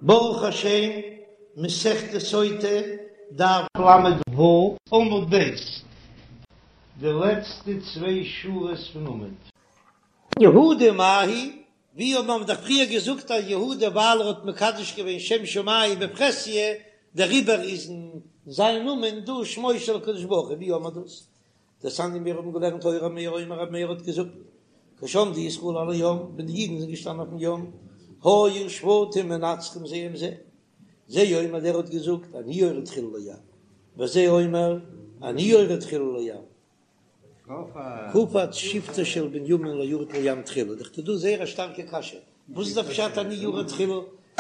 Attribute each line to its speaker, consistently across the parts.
Speaker 1: ברוך השם, מסכת סוטה, דף ל"ו, עמוד ב', די לעצטע צוויי שורות פון עמוד. יהודה מאי היא, ווי האבן מיר דאך פריער געזאגט אז יהודה ווייל ער האט מקדש געווען שם שמים בפרהסיא, דעריבער איז אין זיין נאמען דא שמו של הקדוש ברוך הוא, ווי האבן מיר דאס? דתניא מיר האבן געלערנט היה ר' מאיר אומר ר' מאיר האט געזאגט כשעמדו ישראל על הים ווען די אידן זענען געשטאנען אויפן ים היו שבטים מנצחים זה עם זה זה אומר דער האט געזאגט אני יורד תחילה לים וזה אומר אני יורד תחילה לים קפץ שבטו של בנימין לא ירד לים תחילה דאך דא זייער א שטארקע קשיא וואס איז דער פשט אני יורד תחילה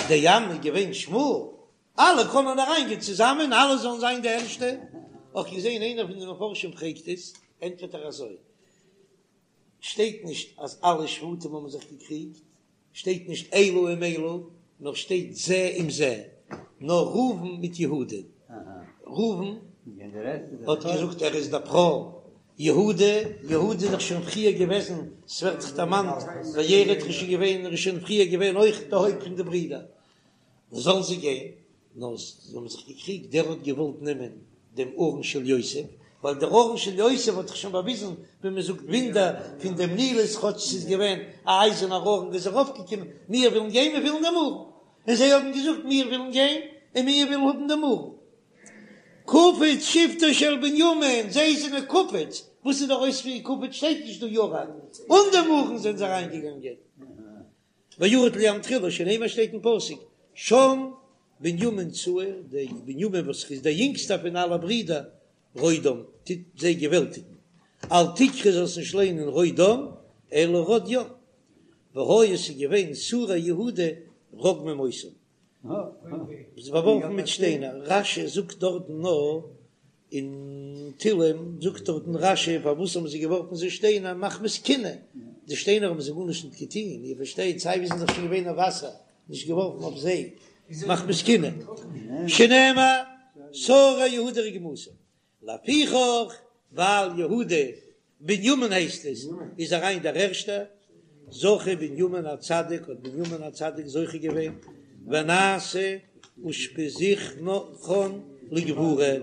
Speaker 1: דער ים איז געווען שמאל אלע קענען אריינגיין צוזאמען, אלע זאלן זיין די ערשטע. האב איך געזען איינער פון די מפרשים פרעגט עס, ענטפערט ער אזוי, שטייט נישט אז אלע שבטים האבן זיך געקריגט, שטייט נישט אלו עם אלו, נאר שטייט זה עם זה, נאר ראובן מיט יהודה, ראובן האט געזאגט ער איז דער בכור, יהודה, יהודה איז דאך שוין פריער געוועזן, ס'ווערט דאך דערמאנט, וירד איז שוין געווען, ער איז שוין פריער געווען אויך די הויפט פון די ברידער, זאלן זיי גיין, נאר זיי האבן זיך געקריגט, דער האט געוואלט נעמען דעם ארון של יוסף, ווייל דער ארון של יוסף האט דאך שוין באוויזן, ווי מען זאגט, וואונדער פון דעם נילוס, כאטש ס'איז געווען א אייזערנער ארון איז ארויפגעקומען, מיר ווילן גיין, מיר ווילן דעם ארון, און זיי האבן געזאגט, מיר ווילן גיין, און מיר ווילן האבן דעם ארון. קפץ שבטו של בנימין, זיי זענען קפץ, וואס איז דער אויספיר קפץ שטייט נישט דא ירד, אן דעם ארון זענען זיי אריינגעגאנגען. וירד לים תחילה שנאמר שטייט אין פסוק שם בנימין צעיר, דער בנימין וואס איז דער יונגסטער פון אלע ברידער, רודם, טוט זיי געוועלטיגן, אל תקרי זאלסט נישט ליינען רודם, אלא רד ים, והיו עס איז געווען שרי יהודה רוגמים אותם, זיי באווארפן מיט שטיינער, רש"י זאגט דארטן נאר אין תהלים זאגט דארטן רש"י פארוואס האבן זיי געווארפן זיי שטיינער מחמת קנאה, די שטיינער האבן זיי גארנישט נישט געטון, איר פארשטייט סיי ווי זענען זיך שוין געווען אויף וואסער, נישט געווארפן אויף זיי מחמת קנאה, שנאמר שרי יהודה רגמתם, לפיכך ווייל יהודה בנימין הייסט עס, איז אריין דער ערשטער, זכה בנימין הצדיק, האט בנימין הצדיק זוכה געווען, ונעשה אושפיזכן לגבורה,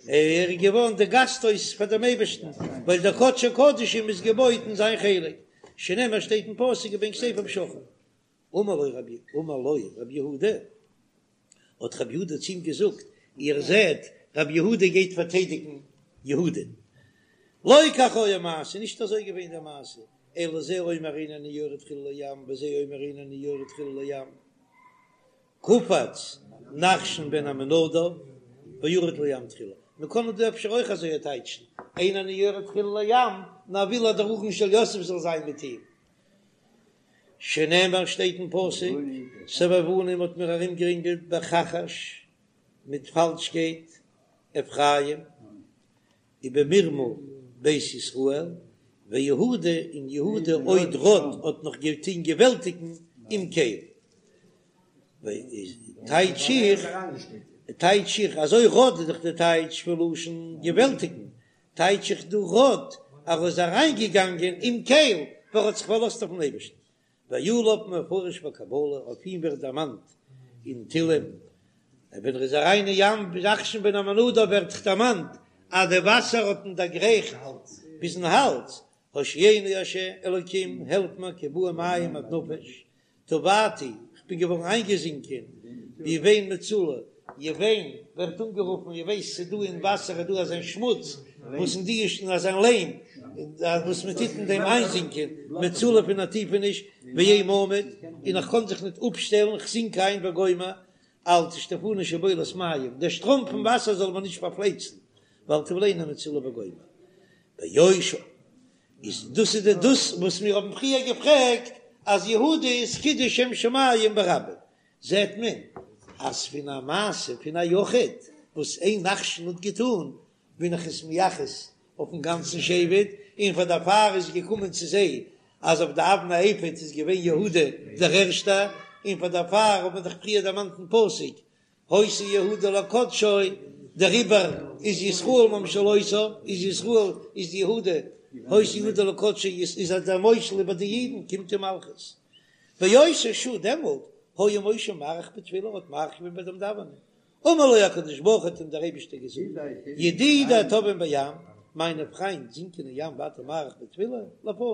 Speaker 1: ער איז געווארן די גאסט הויז פאר דעם אייבערשטן, ווייל דער קדשי קדשים איז געבויט אין זיין חלק, שנאמר שטייט אין פסוק ובין כתפיו שכן. אמר לו רבי, אמר לו רבי יהודה, האט רבי יהודה צו אים געזאגט, איר זעט, רבי יהודה גייט פארטיידיגן יהודה. לא כך היה מעשה, נישט אזוי געווען די מעשה, אלא זה אומר אין אני יורד תחילה לים, וזה אומר אין אני יורד תחילה לים. קפץ נחשון בן עמינדב וירד לים תחילה. מען קען דא אפשר אויך אזוי טייטשן, אין אני יורד תחילה לים, נאר וויל אז דער ארון של יוסף זאל זיין מיט אים. שנאמר שטייט אין פסוק, סבבוני מ'האט מיר ארומגערינגלט בכחש מיט פאלשקייט, אפרים, ובמרמה בית ישראל, ויהודה און יהודה עוד רד האט נאך געטון געוועלטיגן עם קל. טייטש איך, טייטש איך, אזוי רד איז דאך די טייטש פון לשון געוועלטיגן, טייטש איך דא רד אז ער איז אריינגעגאנגען עם קל ווייל ער האט זיך פארלאזט אויפן אייבערשטן, ועליו מפרש בקבלה, אויף אים ווערט דערמאנט אין תהלים, ווען ער איז אריין אין ים נחשון בן עמינדב ווערט דערמאנט אז די וואסער האט אים דערגרייכט ביזן האלז, הושיעני ה' אלוקים העלף מיר כי באו מים עד נפש, טבעתי, כ'בין געווארן איינגעזינקען, ביון מצולה, יון ווערט אנגערופן, איר ווייסט ס'איז דא אין וואסער איז דא אזיין שמוץ, וואס אין די איז אזיין ליים, וואס מען טוט אין דעם איינזינקען, מצולה פון א טיפעניש, ואין מעמד, און איך קען זיך ניט אפשטעלן, כ'זינק איין וגומר, אל תשטפני שבולת מים, דער שטראם פון וואסער זאל מיר נישט פארפלייצן, ואל תבלעני מצולה וגומר. ביושר איז דאס איז די דאס וואס מיר האבן פריער געפרעגט אז יהודה איז קידוש שם שמים ברבים, זעט מען אז פון א מעשה פון א יחיד וואס איין נחשון האט געטון בין איך עס מייחס אויפן גאנצן שבט, און פאר דערפאר איז געקומען צו זיי אז אויף די אבני האפוד איז געווען יהודה דער ערשטער, און פאר דערפאר האט מען דאך פריער דערמאנט אין פסוק היתה יהודה לקדשו, דעריבער איז ישראל ממשלותיו, איז ישראל איז יהודה, היתה יהודה לקדשו איז אז דער מושל איבער די אידן קומט אים מלכות. באותה שעה דעמאלט. היה משה מאריך בתפילה, האט מאריך געווען ביי דעם דאווענען, אמר לו הקדוש ברוך הוא האט אים דער אייבישטער געזאגט, ידידי טובעים בים, מיינע פריינט זינקען אין ים ואתה מאריך בתפילה לפני,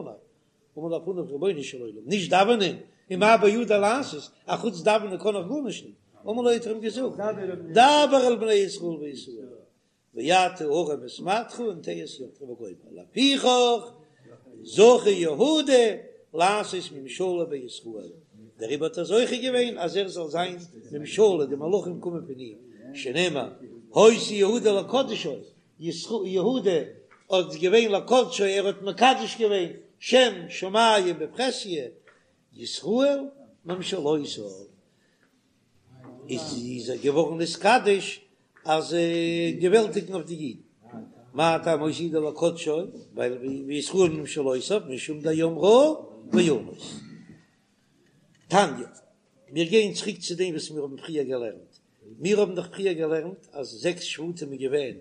Speaker 1: אמר לפניו רבונו של עולם, נישט דאווענען, ומה בידי לעשות, אחוץ דאווענען קען איך גארנישט נישט, אמר לו האט ער אים געזאגט, דבר אל בני ישראל ויסעו, ואתה הרם את מטך ונטה את ידך וגומר, לפיכך זכה יהודה לעשות ממשלה בישראל, דעריבער האט ער זוכה געווען אז ער זאל זיין ממשלה, די מלכים קומען פון אים, שנאמר היתה יהודה לקדשו, יהודה האט געווען לקדשו, ער האט מקדש געווען שם שמים בפרהסיא, ישראל ממשלותיו. איז ער געווארן נתקדש אז געוועלטיגן אויף די אידן. מה טעם היתה יהודה לקדשו, ווייל וישראל ממשלותיו משום דים ראה וינוס. תניא, מיר גייען צוריק צו דעם וואס מיר האבן פריער געלערנט. מיר האבן דאך פריער געלערנט אז זעקס שבטים איז געווען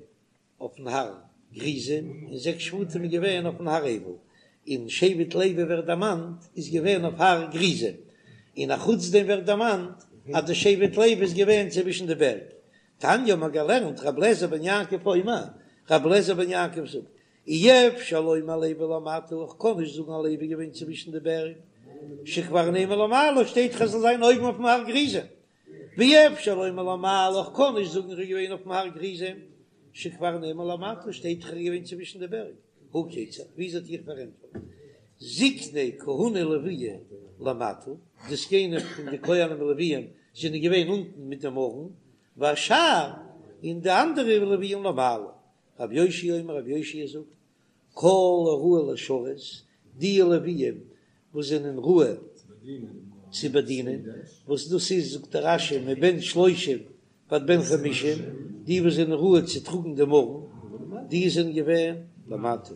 Speaker 1: אויפן הר גריזים, און זעקס שבטים איז געווען אויפן הר עיבל, און שבט לוי ווערט דערמאנט איז געווען אויף הר גריזים, און אחוץ דעם ווערט דערמאנט אז די שבט לוי איז געווען צווישן די בערג. תניא האט מען געלערנט ר' אליעזר בן יעקב אומר, ר' אליעזר בן יעקב זאגט, אי אפשר לומר לוי למטה, איך קען נישט זאגן אז לוי איז געווען צווישן די בערג, שכבר נאמר למעלה, שטייט דאך ער זאל זיין אויבן אויפן הר גריזים, ואי אפשר לומר למעלה, איך קען נישט זאגן ער איז געווען אויפן הר גריזים, שכבר נאמר למטה, שטייט דאך ער איז געווען צווישן די בערג, הא כיצד, ווי אזוי וועט איך פארענטפערן, זקני כהונה ולויה למטה, די זקנים פון די כהנים און לוויים זענען געווען אונטן מיט דעם ארון, והשאר, און די אנדערע לוויים למעלה. רבי יאשיה אומר, רבי יאשיה זאגט, כל הראוי לשרת, די לוויים וואס זענען ראוי צו באדינען, וואס דאס איז זאגט דער רש"י מבן שלושים ועד בן חמישים, די וואס זענען ראוי צו טראגן דעם ארון, די זענען געווען למטה,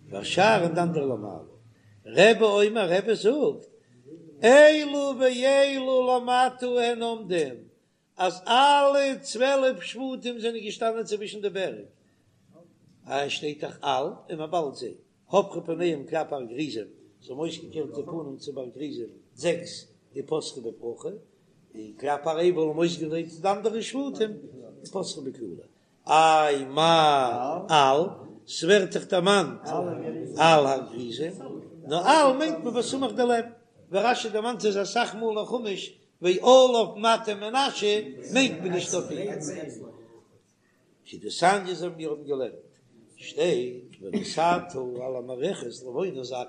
Speaker 1: והשאר און די אנדערע למעלה. רבי אומר, רבי זאגט, אלו ואלו למטה הן עומדים, אז אלע 12 שבטים זענען געשטאנען צווישן די בערג, אה, שטייט דאך על און מען באלד זיי, הפכו פניהם כלפי הר גריזים, זיי האבן אויסגעקערט די פנים צו בארג גריזים, זעקס ופתחו בברכה, און כלפי הר עיבל האבן אויסגעדרייט די אנדערע שבטים ופתחו בקללה. איי מאי על, ס'ווערט דאך דערמאנט על הר גריזים, נאר על מיינט מען בסמוך דערלעבן, ווי רש"י דערמאנט עס אסאך מאל אין חומש ועליו מטה מנשה מיינט מען נישט אויף אים. כדתניא אזוי ווי מיר האבן געלערנט שטייט ונתתה על המערכת לבונה זכה,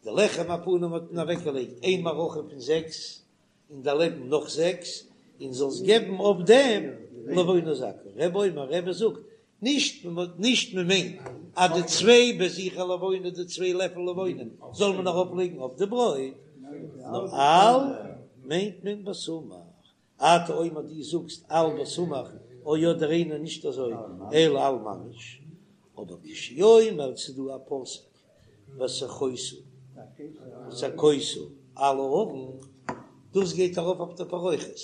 Speaker 1: די לחם הפנים האט מען אוועקגעלייגט איין מערכה פון זעקס און דערלעבן נאך זעקס, און זאלסט געבן אויף דעם לבונה זכה. רבי אומר, רבי זאגט, נישט נישט מען מיינט אז די צוויי בזיכי לבונה, די צוויי לעפל לבונה, זאל מען ארויף לייגן אויף די ברויט, נאר על מיינט מען בסמוך. אתה אומר דו זאגסט על בסמוך, או אדער אינו נישט אזוי, אלא על ממש. אבער כשהוא אומר ס'איז דא א פסוק וסכות וסכות על הארון, דאס גייט ארויף אויף די פרוכת,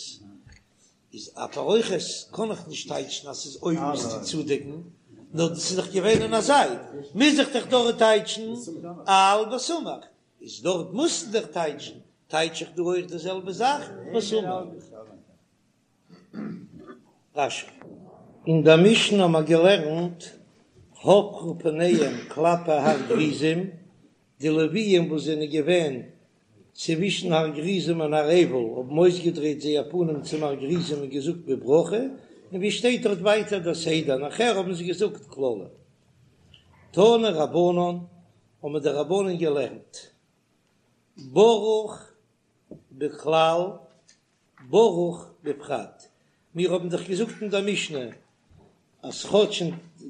Speaker 1: איז א פרוכת קען איך נישט טייטשן אז ס'איז אויבן איז צו צודעקן, נאר דאס איז דאך געווען אין א זייט, מוז איך דאך דארט טייטשן על בסמוך, איז דארט מוזטו דאך טייטשן, טייטש איך דא אויך די זעלבע זאך בסמוך. רש"י. אין דער משנה האבן מיר געלערנט הפכו פניהם כלפי הר גריזים, די לוויים וואס זענען געווען צווישן הר גריזים און הר עיבל האבן אויסגעדרייט זייער פנים צום הר גריזים און געזאגט בברכה, און ווי שטייט דארט ווייטער דער סדר, נאכער האבן זיי געזאגט קללה. תנו רבנן, האבן די רבנן געלערנט ברוך בכלל ברוך בפרט, מיר האבן דאך געזאגט אין דער משנה אז כאטש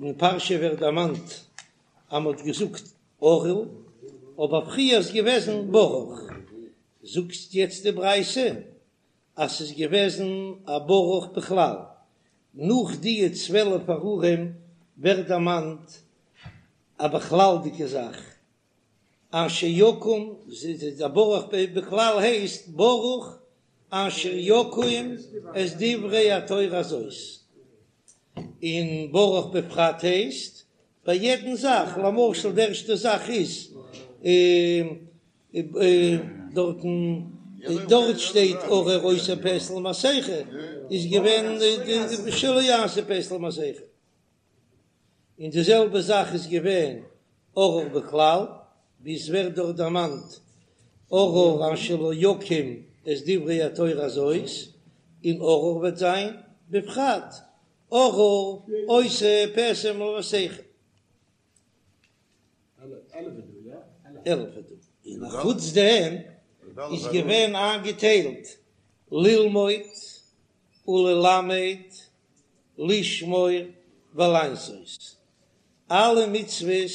Speaker 1: אין פרשה ווערט דערמאנט אז מען האט געזאגט ארור, אבער פריער איז געוועזן ברוך, זאגט יעצט די ברייתא אז ס'איז געוועזן א ברוך בכלל, נאך די 12 ארורים ווערט דערמאנט א בכלל'דיגע זאך, אשר יקום, די ברוך בכלל הייסט ברוך אשר יקום את דברי התורה הזאת, און ברוך בפרט הייסט ביי יעדן זאך, למשל די ערשטע זאך איז דארטן. דארט שטייט ארור עושה פסל מסכה איז געווען שלא יעשה פסל מסכה, און די זעלבע זאך איז געווען ארור בכלל, ווי עס ווערט דארט דערמאנט ארור אשר לא יקים את דברי התורה הזאת, און ארור וועט זיין בפרט ארור עושה פסל מסכה. 11 איז דא. און אחוץ דעם איז געווען איינגעטיילט ללמוד וללמד לשמור ולעשות. אלע מצוות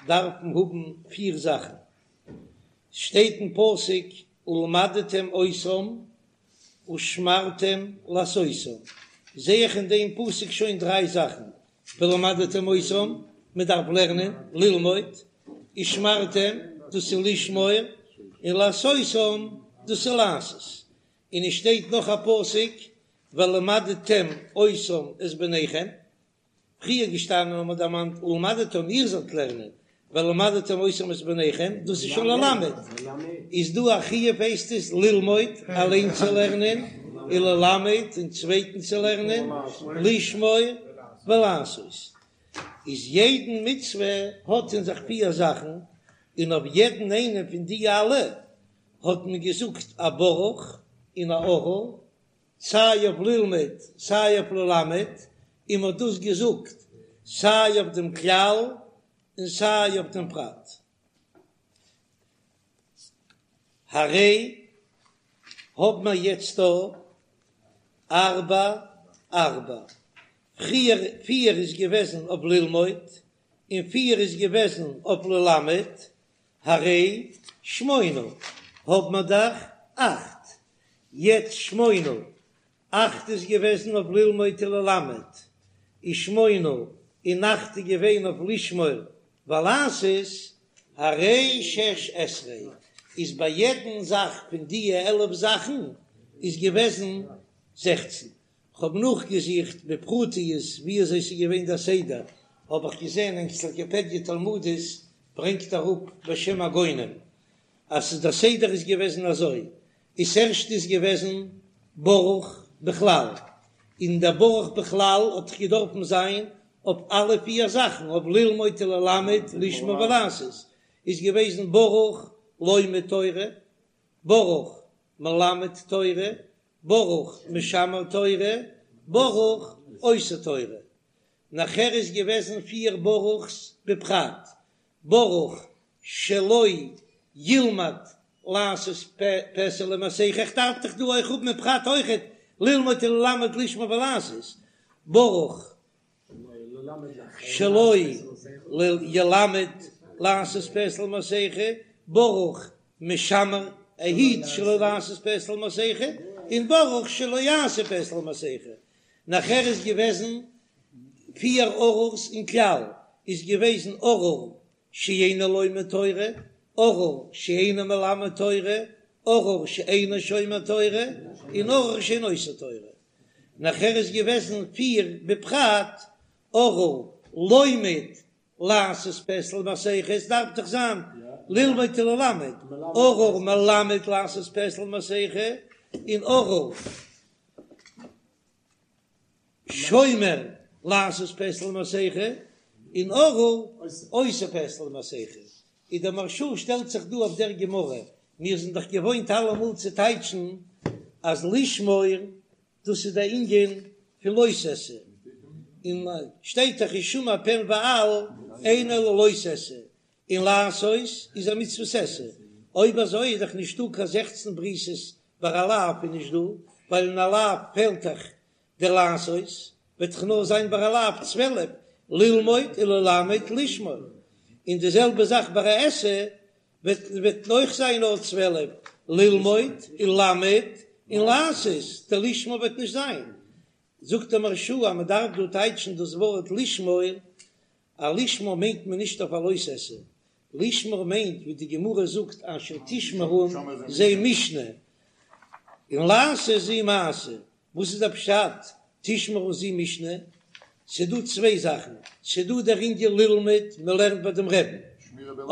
Speaker 1: דארפן האבן פיר זאכן. שטייט אין פסוק ולמדתם אותם ושמרתם לעשותם, זע איך אין דעם פסוק שוין דריי זאכן, ולמדתם אותם, מען דארף לערנען, ללמוד, ושמרתם, דאס איז לשמור, און לעשותם, דאס איז לעשות. און עס שטייט נאך א פסוק, ולמדתם אותם את בניכם, פריער געשטאנען האט מען דערמאנט ולמדתם איר זאלט לערנען, ולמדתם אותם את בניכם, דאס איז שוין ללמד, איז דא א חיוב הייסט עס ללמוד, אליין צו לערנען, און ללמד, און צווייטן צו לערנען, לשמור ולעשות, איז יעדן מצוה האט אין זיך פיר זאכן, און אויף יעדן איינעם פון די אלע האט מען געזאגט א ברוך און א ארור, סיי אויף ללמוד סיי אויף ללמד, און מ'האט דאס געזאגט סיי אויף דעם כלל און סיי אויף דעם פרט. הרי האב מיר יעצט דא ארבע ארבע, פריער פיר איז געוועזן אויף ללמוד און פיר איז געוועזן אויף ללמד, הרי שמונה האב מיר דאך אכט, יעצט שמונה, אכט איז געוועזן אויף ללמוד וללמד, ושמונה און אכט איז געווען אויף לשמור ולעשות, הרי שש עשרה, איז ביי יעדן זאך פון דיע 11 זאכן איז געוועזן זעכצן. כ'האב נאכגעזוכט בפרטיות ווי אזוי ס'איז געווען דער סדר, האב איך געזען אנציקלופדיה תלמודית ברענגט אראפ בשם הגאונים אז ס'איז דער סדר איז געוועזן אזוי, איז ערשט איז געוועזן ברוך בכלל, און דער ברוך בכלל האט דאך געדארפן זיין אויף אלע פיר זאכן, אויף ללמוד וללמד לשמור ולעשות, איז געוועזן ברוך לומד תורה, ברוך מלמד תורה, ברוך משמר תורה, ברוך עושה תורה. נאכער איז געוועזן פיר ברוך'ס בפרט, ברוך שלא ילמד לעשות פסל ומסכה, איך דארף דאך דא אויך האבן אין פרט אויכעט ללמוד וללמד לשמור ולעשות, ברוך שלא ילמד לעשות פסל ומסכה, ברוך משמר ער היט שלא לעשות פסל ומסכה, און ברוך שלא יעשה פסל ומסכה. נאכער איז געוועזן פיר ארור'ס אין כלל, איז געוועזן ארור שאינו לומד תורה, ארור שאינו מלמד תורה, ארור שאינו שומר תורה, און ארור שאינו עושה תורה. נאכער איז געוועזן פיר בפרט, ארור לומד לעשות פסל ומסכה, עס דארף דאך זיין ללמוד וללמד, ארור מלמד לעשות פסל ומסכה, און ארור שומר לעשות פסל ומסכה, און ארור עושה פסל ומסכה. איז דער מהרש"א שטעלט זיך דא אויף דער גמרא, מיר זענען דאך געוואוינט אלעמאל צו טייטשן אז לשמור דאס איז דער ענין פון לא תעשה, און שטייט דאך השמר פן ואל אינו אלא לא תעשה, און לעשות איז א מצוות עשה, אויב אזוי איז דאך נישטא קיין זעכצן בריתות ביי א לאו איז נישט דא, ווייל אין א לאו פעלט דאך דער לעשות, וועט דאך נאר זיין ביי א לאו 12, ללמוד וללמד לשמור, און די זעלבע זאך ביי א עשה וועט וועט אויך זיין נאר 12, ללמוד וללמד און לעשות, דער לשמור וועט נישט זיין. זאגט דער מהרש"א אז מען דארף דא טייטשן דאס ווארט לשמור, א לשמור מיינט מען נישט אויף א לא תעשה, לשמור מיינט ווי די גמרא זאגט אשר תשמרון זו משנה, און לעשות זו מעשה, וואס איז דער פשט תשמרון זו משנה? ס'דא צוויי זאכן, ס'דא דער ענין ללמוד, מ'לערנט ביי דעם רעבן,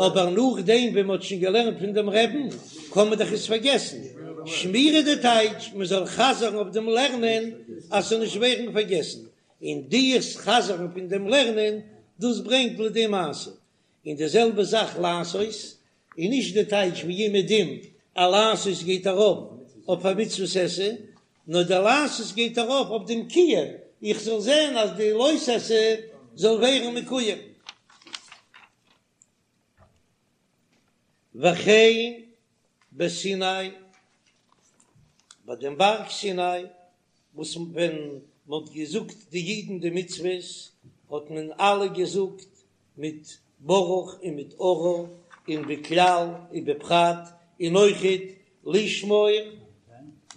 Speaker 1: אבער נאכדעם ווען מ'האט שוין געלערנט פון דעם רעבן קען מען דאך עס פארגעסן, שמירה די טייטש מען זאל חזר'ן אויף דעם לערנען אז ס'זאל נישט ווערן פארגעסן, און דיעס חזר'ן פון דעם לערנען דאס ברענגט לידי מעשה, און די זעלבע זאך לעשות איז נישט די טייטש ווי אומעדום אז לעשות גייט ארויף אויף א מצוות עשה, נאר די לעשות גייט ארויף אויף דעם קיום, איך זאל זען אז די לא תעשה זאל ווערן מקוים. וכן בסיני, ביי דעם בארג סיני, וואס ווען מען האט געזאגט די אידן די מצוות, האט מען אלע געזאגט מיט ברוך און מיט ארור, און בכלל ובפרט, און אויכעט לשמור,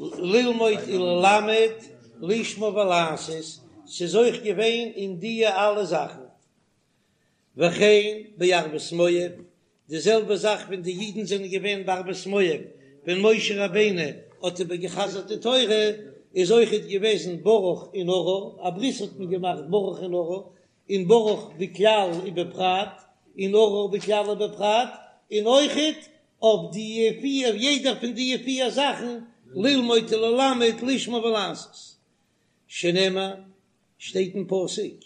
Speaker 1: ללמוד וללמד, לשמור ולעשות, ס'איז אויך געווען אין דיע אלע זאכן. וכן בערבות מואב, די זעלבע זאך ווען די אידן זענען געווען בערבות מואב, ווען משה רבינו האט איבער געחזרט די תורה, איז אויכעט געוועזן ברוך און ארור, א ברית האט מען געמאכט ברוך און ארור, און ברוך בכלל ובפרט, און ארור בכלל ובפרט, און אויכעט אויף די פיר, יעדער פון די פיר זאכן, ללמוד וללמד, לשמור ולעשות, שנאמר, שטייט אין פסוק,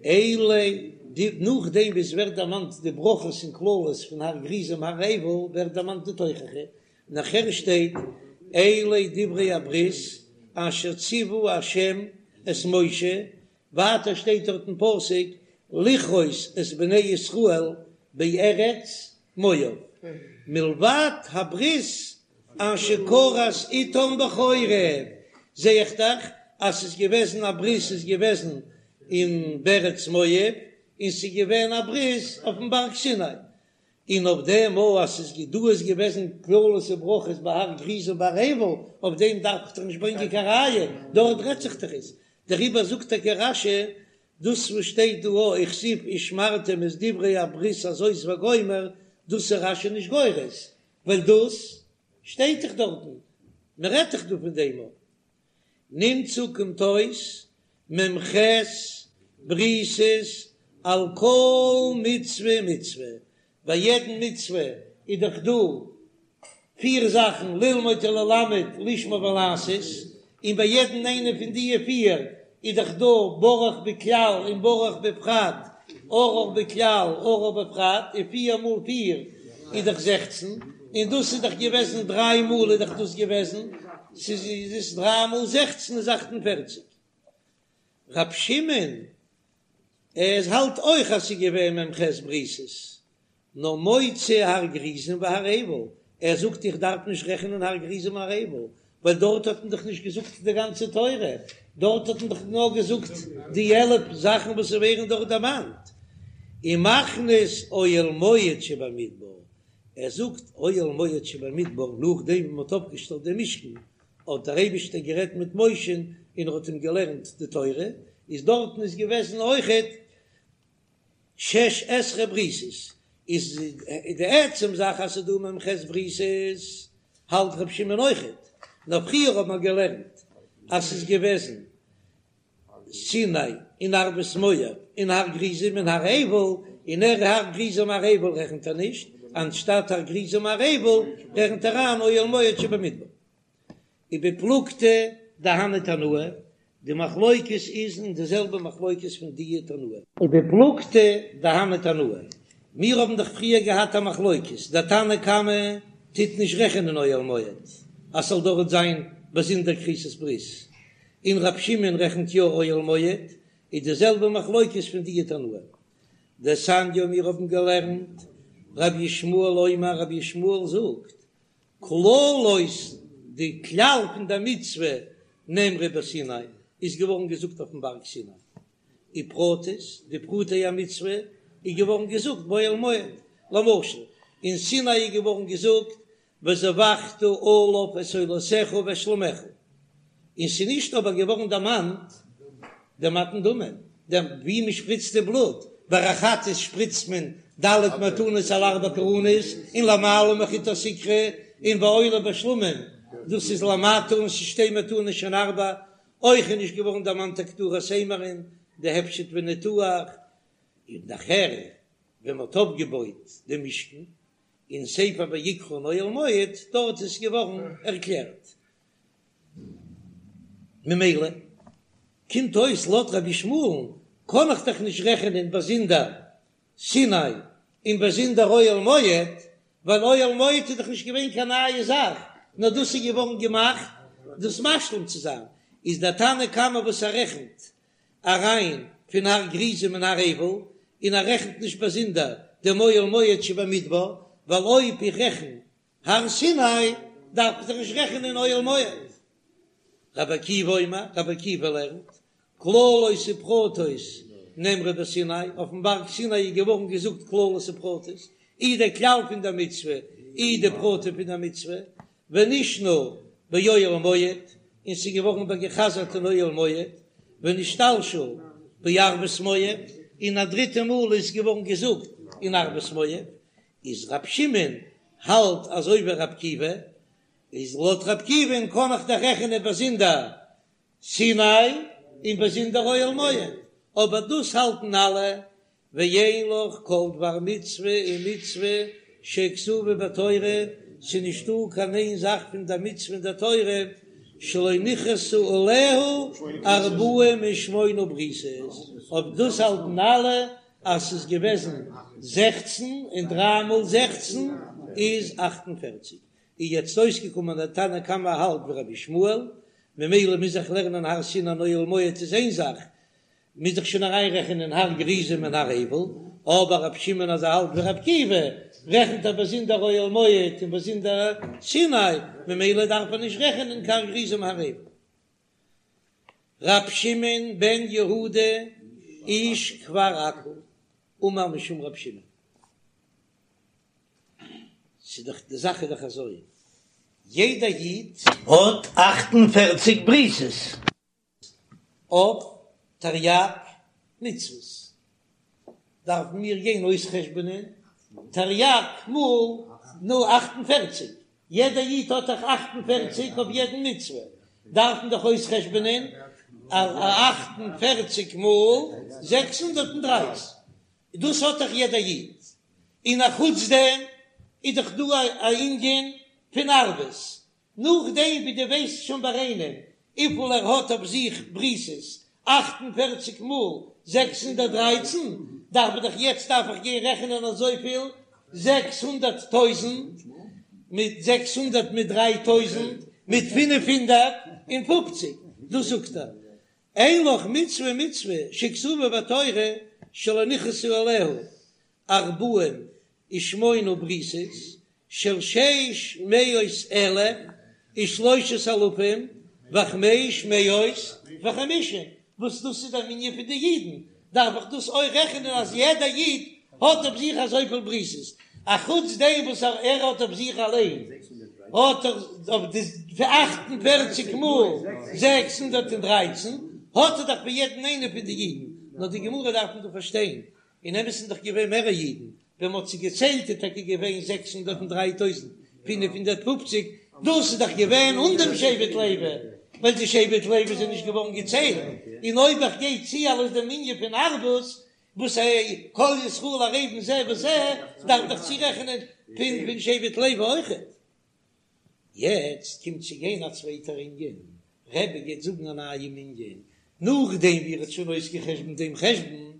Speaker 1: אלה די, נאכדעם ווי עס ווערט דערמאנט די ברכות און קללות פון הר גריזים הר עיבל, ווערט דערמאנט די תוכחה, נאכער שטייט אלה דברי הברית אשר ציוה ה' את משה, ווייטער שטייט דארט אין פסוק לכרות את בני ישראל בארץ מואב, מלבד הברית אשר כרת איתם בחורב, זע איך דאך אז ס'איז געוועזן א ברית איז געוועזן אין בארץ מואב, און ס'איז געווען א ברית אויפן בארג סיני, און אויף דעם אויך אז ס'איז דא איז געוועזן קללות וברכות בהר גריזים ובהר עיבל, אויף דעם דארף איך דאך נישט ברענגען קיין ראיה, דארט רעדט זיך דאך עס, דעריבער זאגט טאקע רש"י, דאס וואס שטייט דא וכתיב ושמרתם את דברי הברית הזאת וגומר, דאס איז רש"י נישט גורס, ווייל דאס שטייט דאך דארטן, מען רעדט דאך דא פון דעם אויך. נמצא קומט אויס מ"ח בריתות על כל מצוה ומצוה, ביי יעדן מצוה איז דאך דא פיר זאכן ללמוד וללמד לשמור ולעשות, און ביי יעדן איינע פון די פיר איז דאך דא ברוך בכלל און ברוך בפרט, ארור בכלל ארור בפרט, און פיר מאל פיר איז דאך זעכצן, און דאס איז דאך געוועזן דריי מאל איז דאך דאס געוועזן, ס'איז איז דריי מאל זעכצן איז אכט און פערציג. רב שמעון ער האלט אויך אז ס'איז געווען מ"ח בריתות, נאר מוציא הר גריזים והר עיבל, ער זאגט איך דארף נישט רעכענען הר גריזים הר עיבל, ווייל דארט האט מען דאך נישט געזאגט די גאנצע תורה, דארט האט מען דאך נאר געזאגט די 11 זאכן וואס ווערן דארט דערמאנט, ומכניס אוהל מועד שבמדבר, ער זאגט אוהל מועד שבמדבר נאכדעם ווי מען האט אויפגעשטעלט דעם משכן האט דער אייבישטער גערעדט מיט משה'ן און ער האט אים געלערנט די תורה, איז דארטן איז געוועזן אויכעט שש עשרה בריתות, איז די עצם זאך אז ס'איז דא מ"ח בריתות האלט ר' שמעון אויכעט, נאר פריער האט מען געלערנט אז ס'איז געוועזן סיני און ערבות מואב און הר גריזים און הר עיבל, און ער הר גריזים הר עיבל רעכנט ער נישט, אנשטאט הר גריזים הר עיבל רעכנט ער אריין אוהל מועד שבמדבר. ובפלוגתא דהני תנאי, די מחלוקת איז אין די זעלבע מחלוקת פון די תנאים. ובפלוגתא דהני תנאי, מיר האבן דאך פריער געהאט א מחלוקת, דער תנא קמא טוט נישט רעכענען אוהל מועד אז ס'זאל דארט זיין באזונדער כריתת ברית, און רב שמעון רעכנט יא אוהל מועד, איז די זעלבע מחלוקת פון די תנאים. דתניא מיר האבן געלערנט, רבי ישמעאל אומר רבי ישמעאל זאגט, כללות די כלל פון די מצוה נאמרה בסיני איז געווארן געזאגט אויפן בארג סיני, ופרטות די פרטי המצוה איז געווארן געזאגט באוהל מועד, למשל אין סיני איז געווארן געזאגט וזבחת עליו את עולותיך ואת שלמיך, און ס'איז נישט אבער געווארן דערמאנט די מתן דמים, דעם ווי מען שפריצט די בלוט, ביי א חטאת שפריצט מען ד' מתנות על ארבע קרנות און למעלה מחוט הסיקרא, און בעולה בשלמים דאס איז למטה און ס'איז שתי מתנות שהן ארבע, אויך איז נישט געווארן דערמאנט הקטרת אימורין, די הפשט וניתוח, און נאכער ווען מען האט אויפגעבויט דעם משכן. אין ספר ויקרא אין אוהל מועד, דארט איז געווארן ערקלערט. ממילא קומט אויס לויט רבי ישמעאל'ן קען איך דאך נישט רעכענען באזונדער סיני און באזונדער אוהל מועד, ווייל אוהל מועד איז דאך נישט געווען קיין נייע זאך, נאר דאס איז געווארן געמאכט דאס משלים צו זיין, איז דער תנא קמא וואס ער רעכנט אריין פון הר גריזים און הר עיבל, און ער רעכנט נישט באזונדער דעם אוהל מועד שבמדבר, ווייל אויב איך רעכן הר סיני דארף איך דאך נישט רעכענען אוהל מועד. רבי עקיבא אומר, רבי עקיבא לערנט, כללות ופרטות נאמרו בסיני, אויפן בארג סיני איז געווארן געזאגט כללות ופרטות, אי דער כלל פון דער מצוה, אי די פרטים פון דער מצוה, ונשנו באוהל מועד, און ס'איז געווארן איבערגעחזרט אין אוהל מועד, ונשתלשל בערבות מואב, און א דריטע מאל איז געווארן געזאגט אין ערבות מואב, איז ר' שמעון האלט אזוי ווי ר' עקיבא, איז לויט ר' עקיבא'ן קען איך דאך רעכענען באזונדער סיני און באזונדער אוהל מועד, אבער דאס האלטן אלע, ואין לך כל דבר מצוה ומצוה שכתובה בתורה, ס'איז נישטא קיין איין זאך פון די מצוה אין די תורה שלא נכרתו עליה ארבעים ושמונה בריתות, אויב דאס האלטן אלע אז ס'איז געוועזן זעכצן און דריי מאל זעכצן איז אכט און פערציג, איז יעצט אויסגעקומען אז תנא קמא האלט ווי רבי ישמעאל, ממילא מוז איך לערנען הר סיני און אוהל מועד איז איין זאך, מוז איך שוין אריינרעכענען הר גריזים און הר עיבל, אבער רבי שמעון אז ער האלט ווי רבי עקיבא, רעכנט ער באזונדער אוהל מועד און באזונדער סיני, ממילא דארף ער נישט רעכענען קיין הר גריזים און הר עיבל. ר' שמעון בן יהודה איש כפר עכו אמר משום ר' שמעון. ס'איז דאך די זאך איז דאך אזוי, יעדע איד האט 48 בריתות אויף תרי"ג מצוות, דארפן מיר גיין אויסחשבונען תרי"ג מאל נו 48, יעדע איד האט דאך 48 אויף יעדן מצוה, דארף מען דאך אויסחשבונען 48 מאל 613, דאס האט דאך יעדע איד, און א חוץ דעם איז דאך דא א ענין פון ערבות, נאכדעם ווי דו ווייסט שוין ביי איינעם וויפיל ער האט אויף זיך בריתות, 48 מאל 613, דארף איך דאך יעצט דארף איך גיין רעכענען אזויפיל, 600 טויזנט מיט 600 מיט דריי טויזנט מיט 550, דאס זאגט ער, אין לך מצוה ומצוה שכתובה בתורה שלא נכרתו עליה ארבעים ושמונה בריתות של שש מאות אלף ושלושת אלפים וחמש מאות וחמישים, וואס דאס איז דער מנין פון די אידן, דארף איך דאס אויך רעכענען אז יעדע איד האט אויף זיך אזויפיל בריתות, אחוץ דעם וואס ער האט אויף זיך אליין האט ער אויף די 48 מאל 613 האט ער דאך פון יעדן איינעם פון די אידן, נאר די גמרא דארף מען דא פארשטיין, אין אמת איז דאך געווען מערער אידן, ווען מ'האט זיי געציילט איז טאקע געווען 603,550, דאס איז דאך געווען אן דעם שבט לוי, ווייל די שבט לוי זענען נישט געווארן געציילט, און אויב איך גיי צו אלס דעם מנין פון ערבות, וואס ע כל ישראל ערבים זה בזה, דארף דאך צורעכענען פון פון שבט לוי אויכעט. יעצט קומט צו גיין א צווייטער ענין, רבי גייט זאגן א נייעם ענין, נאכדעם ווי ער האט שוין אויסגעחשבונט דעם חשבון,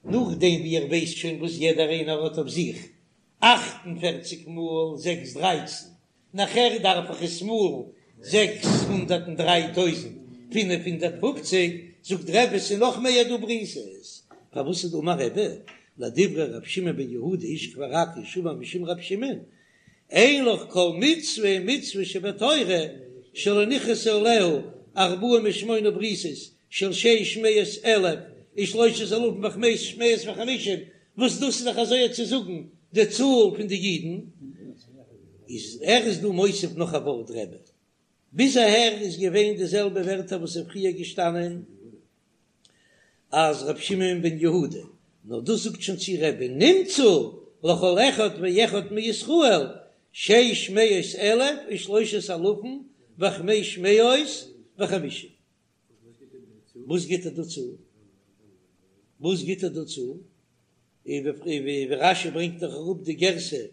Speaker 1: נאכדעם ווי ער ווייסט שוין וואס יעדער איינער האט אויף זיך, 48 מאל זעקס דרייצן, נאכער דארף איך עס מאלן 603,550, זאגט רבי ס'איז נאך מער דא בריתות, פארוואס איז דא אמר רבי, לדברי ר' שמעון בן יהודה איש כפר עכו שאמר משום ר' שמעון, אין לך כל מצוה ומצוה שבתורה שלא נכרתו עליה ארבעים ושמונה בריתות של שש מאות אלף ושלושת אלפים וחמש מאות וחמישים, וואס דאס איז דאך אזוי צו זאגן די צאל פון די אידן, איז ער איז דא מוסיף נאך א ווארט רבי, ביז אהער איז געווען די זעלבע ווערטער וואס איז פריער געשטאנען אז ר' שמעון בן יהודה, נאר דאס זאגט שוין צו רבי נמצא לכל אחד ואחד מישראל שש מאות אלף ושלושת אלפים וחמש מאות וחמישים. וואס גיט ער דא צו? וואס גיט ער דא צו? ווי רש"י ברענגט דאך אראפ די גירסא,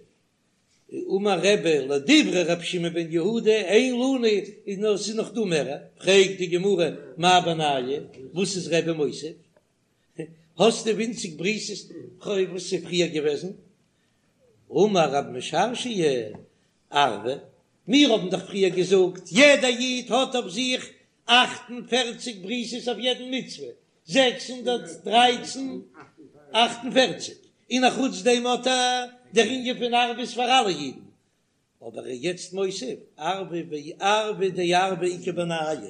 Speaker 1: אמר רבי לדברי רבי שמעון בן יהודה אין לנו איז נאר ס'איז נאך דא מער, פרעגט די גמרא מאי בינייהו וואס איז רבי מוסיף? האסטו ווינציג בריתות וואס איז פריער געוועזן? אמר רב משרשיא ערבא, מיר האבן דאך פריער געזאגט יעדע איד האט אויף זיך 48 בריתות אויף יעדן מצוה, 613 48, און אחוץ דעם האט ער דער ענין פון ערבות פאר אלע אידן, אבער ער איז יעצט מוסיף ערבא וערבא דערבא איכא בינייהו,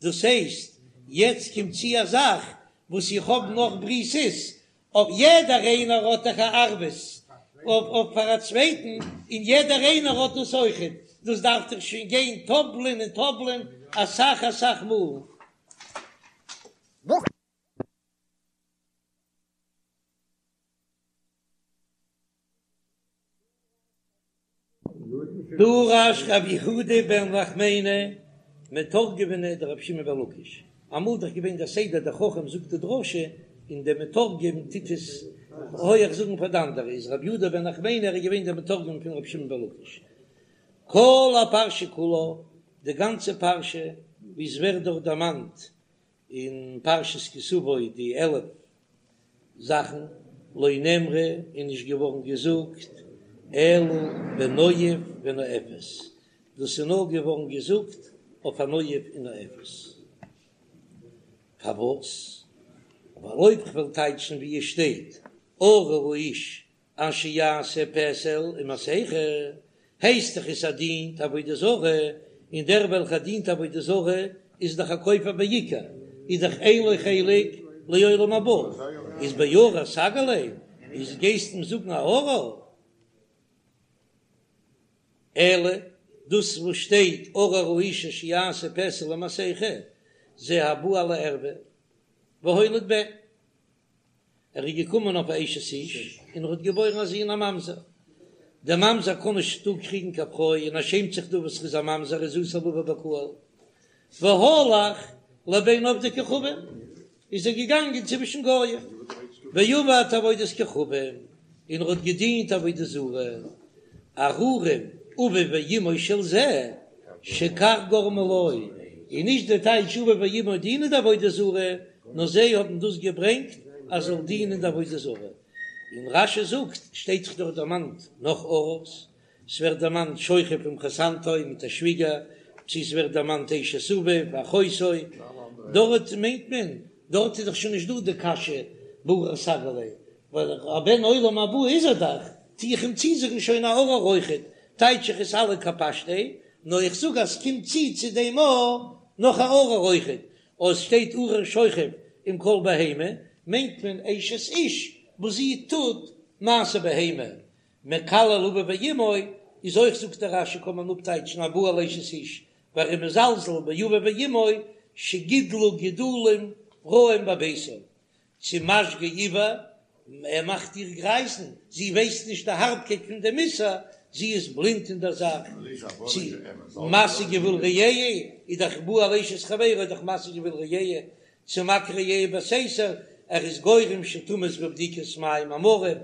Speaker 1: דאס הייסט יעצט קומט צו א זאך וואס איך האב נאך בריתות, אויף יעדער איינער האט דאך א ערבות אויף פאר א צווייטן, און יעדער איינער האט דאס אויכעט, דאס דארף דאך שוין גיין טאפלען און טאפלען אסאך אסאך מאל. דרש רב יהודה בן נחמני מתורגמניה דרבי שמעון בן לקיש, אמאל דאך געווען דער סדר דער חכם זאגט די דרשה און דער מתורגמן טוט עס הויעך זאגן פאר די אנדערע, איז רב יהודה בן נחמני ער איז געווען דער מתורגמן פון רבי שמעון בן לקיש. כל הפרשה כולה, די גאנצע פרשה ווי עס ווערט דארט דערמאנט אין פרשת כי תבוא די 11 זאכן לא נאמרה איז נישט געווארן געזאגט אלא בנואף ונואפת, דאס איז נאר געווארן געזאגט אויף א נואף און נואפת. פארוואס? ווייל אויב כ'וועל טייטשן ווי עס שטייט ארור האיש אשר יעשה פסל ומסכה, הייסט דאך עס ער דינט עבודה זרה, און דער וועלכער דינט עבודה זרה איז דאך א כופר בעיקר, איז דאך אין לו חלק לעולם הבא, איז בארור סגי ליה, איז גייסט אים זאגן א ארור? אלא דאס וואס שטייט ארור האיש אשר יעשה פסל ומסכה, זה הבא על הערוה והוליד בן. ער איז געקומען אויף א אשת איש און ער האט געבוירן א זון א ממזר. דער ממזר קען נישט דא קריגן קיין פרוי און ער שעמט זיך דא וואס ער איז א ממזר איז אסור לבא בקהל. והלך לבין עובדי כוכבים איז ער געגאנגען צווישן גוים ועבד עבודת כוכבים און ער האט געדינט עבודה זרה. ארורים אביו ואמו של זה שכך גרמו לו, און נישט די טייטש אביו ואמו דינען די עבודה זרה, נאר זיי האבן דאס געברענגט אז זאל דינען די עבודה זרה. און רש"י זאגט, שטייט זיך דארט דערמאנט נאך ארור'ס, ס'ווערט דערמאנט שוכב עם חותנתו מיט א שוויגער, צו ס'ווערט דערמאנט אשת אביו ואחותו, דארט מיינט מען, דארט איז דאך שוין נישט דא די קשיא בארור סגי ליה, ווייל א בן עולם הבא איז ער דאך, טו איך אים צוזאגן שוין א ארור אויכעט, טייטש איך עס אלע כפשטיה, נאר איך זאג אז ס'קומט צו צו דעם א נאך א ארור אויכעט, אויב ס'שטייט ארור שוכב עם כל בהמה, מיינט מען אשת איש וואס זי טוט מעשה בהמה, מקלל אביו ואמו איז אויך זאגט דער רש"י קען מען אפטייטשן הבא על אשת איש, ווייל ער איז מזלזל באביו ואמו שגידלו גידולים רעים בביתו, צו משגה עור, ער מאכט איר גרייזן, זי ווייסט נישט די הארבקייט פון דעם איסור, זי איז בלינד אין דער זאך, צו מסיג גבול רעהו, איז דאך בא על אשת חברו איז דאך מסיג גבול רעהו, צו מכה רעהו בסתר, ער איז גורם שתמות בבדיקת מים המרים,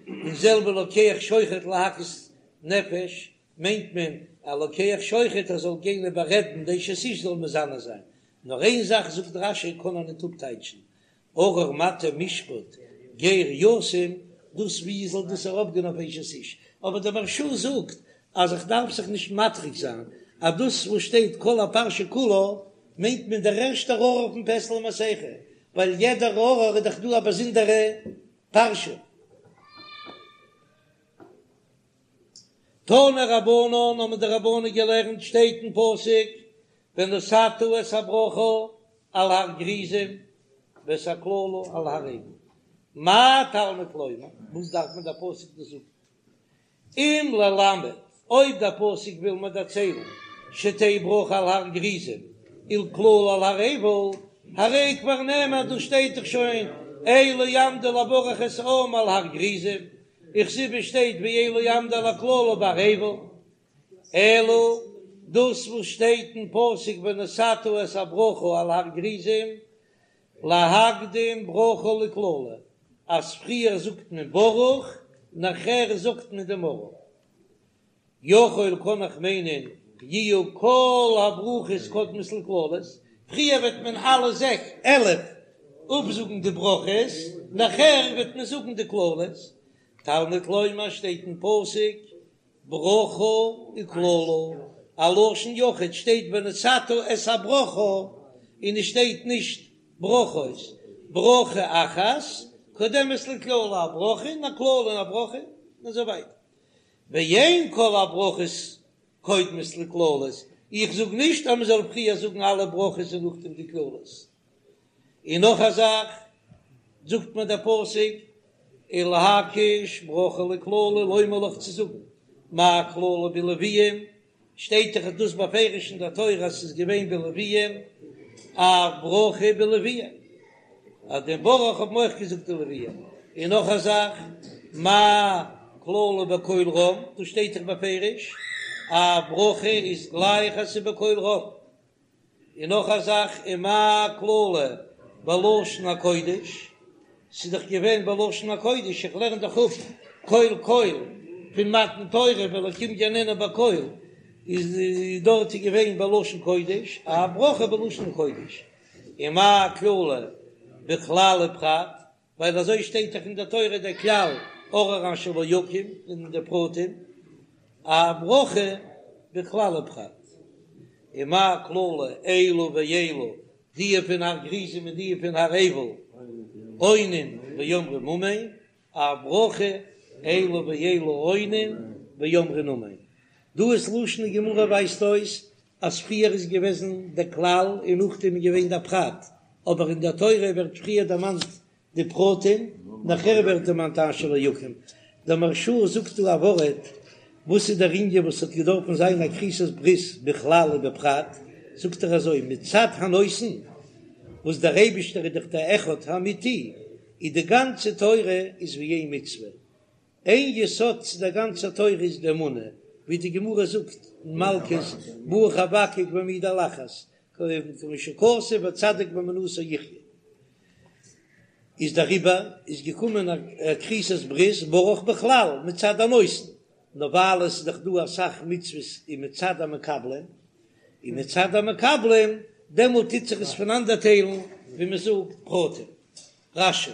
Speaker 1: און זעלבע לוקח שוחד להכות נפש, מיינט מען א לוקח שוחד ער זאל גיין איבעררעדן די אשת איש זאל מזנה זיין, נאר איין זאך זאגט רש"י קען ער ניט אפטייטשן, ארור מטה משפט גר יתום, דאס ווי זאל דאס ארויפגיין אויף אשת איש, אבער דער מהרש"א זאגט אז איך דארף זיך נישט מטריח זיין אז דאס וואס שטייט כל הפרשה כולה מיינט מען דער ערשטער ארור פון פסל ומסכה, ווייל יעדער ארור איז דאך דא א באזונדערע פרשה. תנו רבנן האבן די רבנן געלערנט שטייט אין פסוק ונתת את הברכה על הר גריזים ואת הקללה על הר עיבל, מה תלמוד לומר, וואס דארף מען דער פסוק דאס זאגן, אם ללמד, אויב דער פסוק וויל מיר דערציילן שתהא ברכה על הר גריזים ולקללה על הר עיבל, הרי כבר נאמר דאס שטייט דאך שוין אלה יעמדו לברך את העם על הר גריזים, וכתיב שטייט ואלה יעמדו על הקללה בהר עיבל, אלא דאס וואס שטייט אין פסוק ונתת את הברכה על הר גריזים, להקדים ברכה לקללה. אז פריער זאגט מען ברוך נאכער זאגט מען דעם ארור. יכול קען איך מיינען יהיו כל הברכות קודמות לקללות, פריער וועט מען אלע זעק 11 אפזאגן די ברכות, נאכער וועט מען זאגן די קללות, תלמוד לומר שטייט אין פסוק ברכה וקללה, א לשון יחיד שטייט ונתת את הברכה און עס שטייט נישט ברכות, ברכה אחת קודמת לקללה, א ברכה און א קללה און א ברכה און אזוי ווייטער. ואין כל הברכות קודמות לקללות, איך זאג נישט אז מען זאל פריער זאגן אלע ברכות און נאכדעם די קללות. און נאך א זאך, זאגט מיר דער פסוק, ולהקיש ברכה לקללה לומר לך צו זאגן, מה קללה בלויים, שטייט דאך דאס בפירוש אין דער תורה אז ס'איז געווען בלויים, אף ברכה בלויים, אז דעם ברוך האבן אויך געזאגט די לויים, און נאך א זאך, מה קללה בקול רם, דאס שטייט דאך בפירוש, אף ברכה איז גלייך אז ס'איז בקול רם. און נאך א זאך, ומה קללה בלשון הקודש, ס'איז דאך געווען בלשון הקודש, איך לערן דאך אפ קול קול פון מתן תורה והאלקים יעננו בקול, איז דארט איז געווען בלשון קודש, אף ברכה בלשון קודש, ומה קללה בכלל ופרט, ווייל אזוי שטייט דאך אין דער תורה דער כלל ארור אשר לא יקים און די פרטים אף ברכה בכלל ופרט ומה קללה אלו ואלו די פון הר גריזים און די פון הר עיבל עונין ואומרים אמן אף ברכה אלו ואלו עונין ואומרים אמן דא איז לשון גמרא ווייזט אויס אז פריער איז געוועזן דער כלל און נאכדעם איז געווען דער פרט, אבער אין דער תורה ווערט פריער דערמאנט די פרטים, נאכער ווערט דערמאנט אשר לא יקים. דער מהרש"א זאגט דא א ווארט, וואס איז דער ענין וואס האט געדארפן זיין א כריתת ברית בכלל ובפרט, זאגט ער אזוי, מצד הנותן, וואס דער אייבישטער איז דאך דער אחד האמיתי, איז די גאנצע תורה איז ווי איין מצוה, איין יסוד צו דער גאנצער תורה איז די אמונה, ווי די גמרא זאגט אין מלקות, בא חבקוק והעמידו על אחת, כמו שכתוב וצדיק באמונתו יחיה. איז דעריבער איז געקומען א כריתת ברית ברוך בכלל מצד הנותן, נאר ווייל עס איז דאך דא אסאך מצוות און מצד המקבלים, און מצד המקבלים דעמאלט טוט זיך עס פונאנדערטיילן ווי מען זאגט פרטים. רש"י.